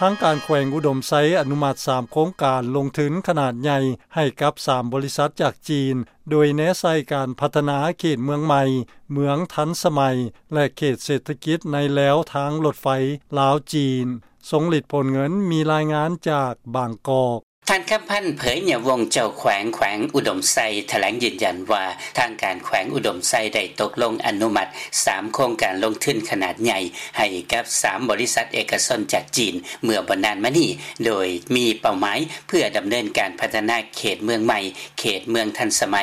ທາງການແຂວງອຸດົມໄຊອະນຸມັດສາມໂຄງການລົງທຶນຂະໜາດໃຫຍ່ໃຫ້ກັບສາມບໍລິສັດຈາກຈີນ, ໂດຍແນໃສ່ການພັດທະນາເຂດເມືອງໃໝ່, ເມືອງທັນສະໄໝ ແລະ ເຂດເສດຖະກິດໃນແລວທາງລົດໄຟລາວ-ຈີນ. ຊົງລິດ ໂພນເງິນ ມີລາຍງານຈາກບາງກອກ. ທ່ານ ຄຳພັນ ເຜີຍຍະວົງ ເຈົ້າແຂວງແຂວງອຸດົມໄຊ ຖະແຫຼງຢືນຢັນວ່າ ທາງການແຂວງອຸດົມໄຊໄດ້ຕົກລົງອະນຸມັດສາມໂຄງການລົງທຶນຂະໜາດໃຫຍ່ ໃຫ້ກັບສາມບໍລິສັດເອກະຊົນຈາກຈີນ ເມື່ອບໍ່ນານມານີ້ ໂດຍມີເປົ້າໝາຍເພື່ອດຳເນີນການພັດທະນາເຂດເມືອງໃໝ່, ເຂດເມືອງທັນສະໄໝ,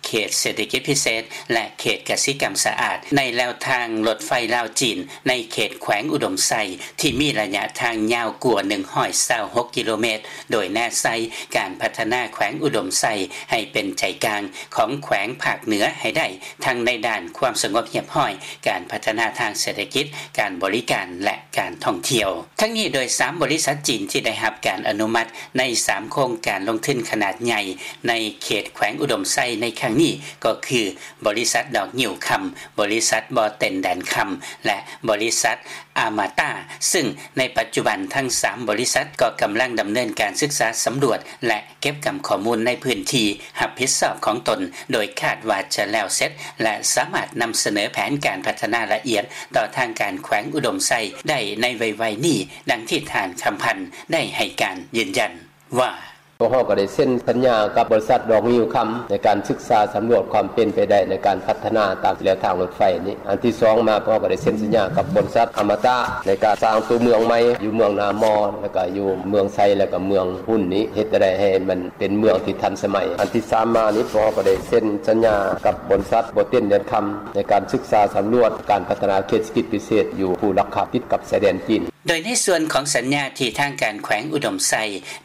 ເຂດເສດຖະກິດພິເສດ ແລະ ເຂດກະສິກຳສະອາດ ໃນແລວທາງລົດໄຟລາວ-ຈີນ ໃນເຂດແຂວງອຸດົມໄຊ ທີ່ມີໄລຍະທາງຍາວກວ່າໜຶ່ງຮ້ອຍຊາວຫົກກິໂລແມັດ, ໂດຍແນໃສ່ການພັດທະນາແຂວງອຸດົມໄຊໃຫ້ເປັນໃຈກາງຂອງແຂວງພາກເໜືອໃຫ້ໄດ້, ທັງໃນດ້ານຄວາມສະຫງົບຮຽບຮ້ອຍ, ການພັດທະນາທາງເສດຖະກິດ, ການບໍລິການ ແລະ ການທ່ອງທ່ຽວ. ທັງນີ້ໂດຍສາມບໍລິສັດຈີນທີ່ໄດ້ຮັບການອະນຸມັດໃນສາມໂຄງການລົງທຶນຂະໜາດໃຫຍ່ໃນເຂດແຂວງອຸດົມໄຊໃນຄັ້ງນີ້ກໍຄື ບໍລິສັດດອກງິ້ວຄຳ, ບໍລິສັດບໍ່ເຕັນແດນຄຳ ແລະ ບໍລິສັດອາມາຕາ, ຊຶ່ງໃນປັດຈຸບັນທັງສາມບໍລິສັດກໍກຳລັງດຳເນີນການສຶກສາສຳຫຼວດ ແລະ ເກັບກຳຂໍ້ມູນໃນພື້ນທີ່ຮັບຜິດຊອບຂອງຕົນ, ໂດຍຄາດວ່າຈະແລ້ວເສັດ ແລະ ສາມາດນຳສະເໜີແຜນການພັດທະນາລະອຽດຕໍ່ທາງການແຂວງອຸດົມໄຊໄດ້ໃນໄວໆນີ້, ດັ່ງທີ່ທ່ານ ຄຳພັນ ໄດ້ໃຫ້ການຢືນຢັນວ່າ ພວກເຮົາກໍໄດ້ເຊັນສັນຍາກັບບໍລິສັດດອກງິ້ວຄຳ ໃນການສຶກສາສຳຫຼວດຄວາມເປັນໄປໄດ້ໃນການພັດທະນາຕາມແລວທາງລົດໄຟນີ້. ອັນທີສອງມາ ພວກເຮົາກໍໄດ້ເຊັນສັນຍາກັບບໍລິສັດອະມະຕະ ໃນການສ້າງຕົວເມືອງໃໝ່ຢູ່ເມືອງນາມໍ ແລ້ວກໍຢູ່ເມືອງໄຊ ແລ້ວກໍເມືອງຮຸນນີ້ ເຮັດໃດໃຫ້ມັນເປັນເມືອງທີ່ທັນສະໄໝ. ອັນທີສາມມານີ້ ພວກເຮົາກໍໄດ້ເຊັນສັນຍາກັບບໍລິສັດບໍ່ເຕັນແດນຄຳ ໃນການສຶກສາສຳຫຼວດການພັດທະນາເຂດເສດຖະກິດພິເສດຢູ່ພູລັກຄຳ ຕິດກັບຊາຍແດນຈີນ. ໂດຍໃນສ່ວນຂອງສັນຍາທີ່ທາງການແຂວງອຸດົມໄຊ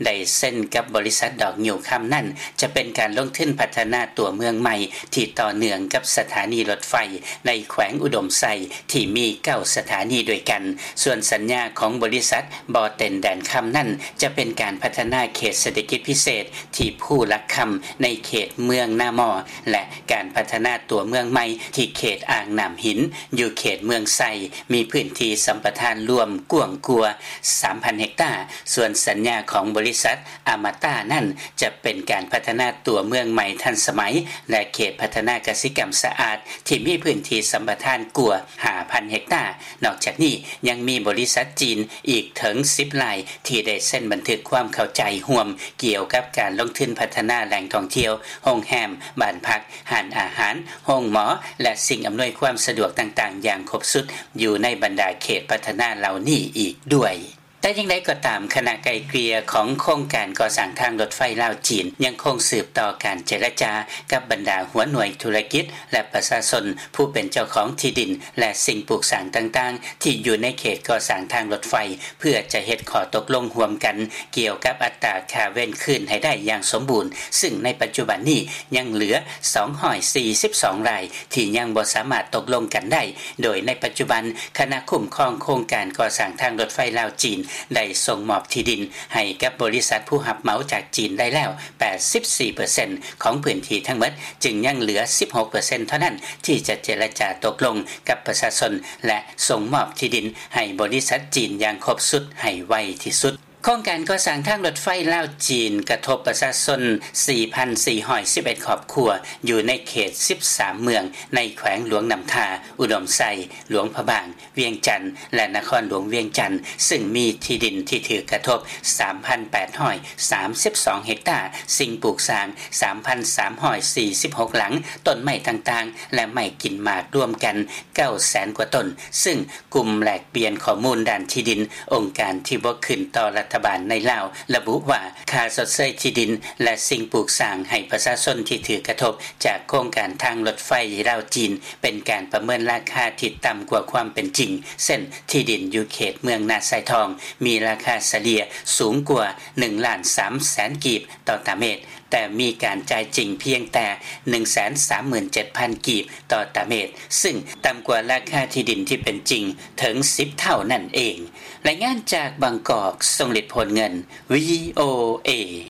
ໄດ້ເຊັນກັບບໍລິສັດດອກງິ້ວຄຳນັ້ນ ຈະເປັນການລົງທຶນພັດທະນາຕົວເມືອງໃໝ່ທີ່ຕໍ່ເນື່ອງກັບສະຖານີລົດໄຟໃນແຂວງອຸດົມໄຊທີ່ມີເກົ້າສະຖານີດ້ວຍກັນ. ສ່ວນສັນຍາຂອງບໍລິສັດບໍ່ເຕັນແດນຄຳນັ້ນ ຈະເປັນການພັດທະນາເຂດເສດຖະກິດພິເສດທີ່ພູລັກຄຳໃນເຂດເມືອງນາມໍ ແລະ ການພັດທະນາຕົວເມືອງໃໝ່ທີ່ເຂດອ່າງນ້ຳຫີນ ຢູ່ເຂດເມືອງໄຊ ມີພື້ນທີ່ສຳປະທານລວມກວ້າງກວ່າສາມພັນເຮັກຕາ. ສ່ວນສັນຍາຂອງບໍລິສັດອະມະຕານັ້ນ ຈະເປັນການພັດທະນາຕົວເມືອງໃໝ່ທັນສະໄໝ ແລະ ເຂດພັດທະນາກະສິກຳສະອາດ ທີ່ມີພື້ນທີ່ສຳປະທານກວ່າຫ້າພັນເຮັກຕາ. ນອກຈາກນີ້ຍັງມີບໍລິສັດຈີນອີກເຖິງສິບລາຍ ທີ່ໄດ້ເຊັນບັນທຶກຄວາມເຂົ້າໃຈຮ່ວມກ່ຽວກັບການລົງທຶນພັດທະນາແຫຼ່ງທ່ອງທ່ຽວ, ໂຮງແຮມ, ບ້ານພັກ, ຮ້ານອາຫານ, ໂຮງໝໍ ແລະ ສິ່ງອຳນວຍຄວາມສະດວກຕ່າງໆຢ່າງຄົບຊຸດ ຢູ່ໃນບັນດາເຂດພັດທະນາເຫຼົ່ານີ້ອີກດ້ວຍ. ແຕ່ຢ່າງໃດກໍຕາມ, ຄະນະໄກ່ເກ່ຍຂອງໂຄງການກໍ່ສ້າງທາງລົດໄຟລາວ-ຈີນ ຍັງຄົງສືບຕໍ່ການເຈລະຈາກັບບັນດາຫົວໜ່ວຍທຸລະກິດ ແລະ ປະຊາຊົນຜູ້ເປັນເຈົ້າຂອງທີ່ດິນ ແລະ ສິ່ງປູກສ້າງຕ່າງໆ ທີ່ຢູ່ໃນເຂດກໍ່ສ້າງທາງລົດໄຟ ເພື່ອຈະເຮັດຂໍ້ຕົກລົງຮ່ວມກັນກ່ຽວກັບອັດຕາຄ່າເວນຄືນໃຫ້ໄດ້ຢ່າງສົມບູນ, ຊຶ່ງໃນປັດຈຸບັນນີ້ຍັງເຫຼືອສອງຮ້ອຍສີ່ສິບສອງລາຍ ທີ່ຍັງບໍ່ສາມາດຕົກລົງກັນໄດ້, ໂດຍໃນປັດຈຸບັນ ຄະນະຄຸ້ມຄອງໂຄງການກໍ່ສ້າງທາງລົດໄຟລາວ-ຈີນ ໄດ້ສົ່ງມອບທີ່ດິນໃຫ້ກັບບໍລິສັດຜູ້ຮັບເໝົາຈາກຈີນໄດ້ແລ້ວ ແປດສິບສີ່ເປີເຊັນຂອງພື້ນທີ່ທັງໝົດ, ຈຶ່ງຍັງເຫຼືອສິບຫົກເປີເຊັນເທົ່ານັ້ນ ທີ່ຈະເຈລະຈາຕົກລົງກັບປະຊາຊົນ ແລະ ສົ່ງມອບທີ່ດິນໃຫ້ບໍລິສັດຈີນຢ່າງຄົບຊຸດໃຫ້ໄວທີ່ສຸດ. ໂຄງການກໍ່ສ້າງທາງລົດໄຟລາວ-ຈີນ ກະທົບປະຊາຊົນສີ່ພັນສີ່ຮ້ອຍສິບເອັດຄອບຄົວ ຢູ່ໃນເຂດສິບສາມເມືອງ ໃນແຂວງຫຼວງນ້ຳທາ, ອຸດົມໄຊ, ຫຼວງພະບາງ, ວຽງຈັນ ແລະ ນະຄອນຫຼວງວຽງຈັນ, ຊຶ່ງມີທີ່ດິນທີ່ຖືກກະທົບສາມພັນແປດຮ້ອຍສາມສິບສອງເຮັກຕາ, ສິ່ງປູກສ້າງສາມພັນສາມຮ້ອຍສີ່ສິບຫົກຫຼັງ, ຕົ້ນໄມ້ຕ່າງໆ ແລະ ໄມ້ກິນໝາກລວມກັນເກົ້າແສນກວ່າຕົ້ນ, ຊຶ່ງ ກຸ່ມແລກປ່ຽນຂໍ້ມູນດ້ານທີ່ດິນ ອົງການທີ່ບໍ່ຂຶ້ນຕໍ່ລັດຖະບານໃນລາວ ລະບຸວ່າ ຄ່າຊົດເຊີຍທີ່ດິນ ແລະ ສິ່ງປູກສ້າງໃຫ້ປະຊາຊົນທີ່ຖືກກະທົບຈາກໂຄງການທາງລົດໄຟລາວ-ຈີນ ເປັນການປະເມີນລາຄາທີ່ຕ່ຳກວ່າຄວາມເປັນຈິງ, ເຊັ່ນ ທີ່ດິນຢູ່ເຂດເມືອງນາຊາຍທອງ ມີລາຄາສະເລ່ຍສູງກວ່າໜຶ່ງລ້ານສາມແສນກີບຕໍ່ຕາເມັດ, ແຕ່ມີການຈ່າຍຈິງພຽງແຕ່ໜຶ່ງແສນສາມໝື່ນເຈັດພັນກີບຕໍ່ຕາເມັດ, ຊຶ່ງຕ່ຳກວ່າລາຄາທີ່ດິນທີ່ເປັນຈິງເຖິງສິບເທົ່ານັ້ນເອງ. ລາຍງານຈາກບາງກອກ, ຊົງລິດ ໂພນເງິນ, ວີໂອເອ.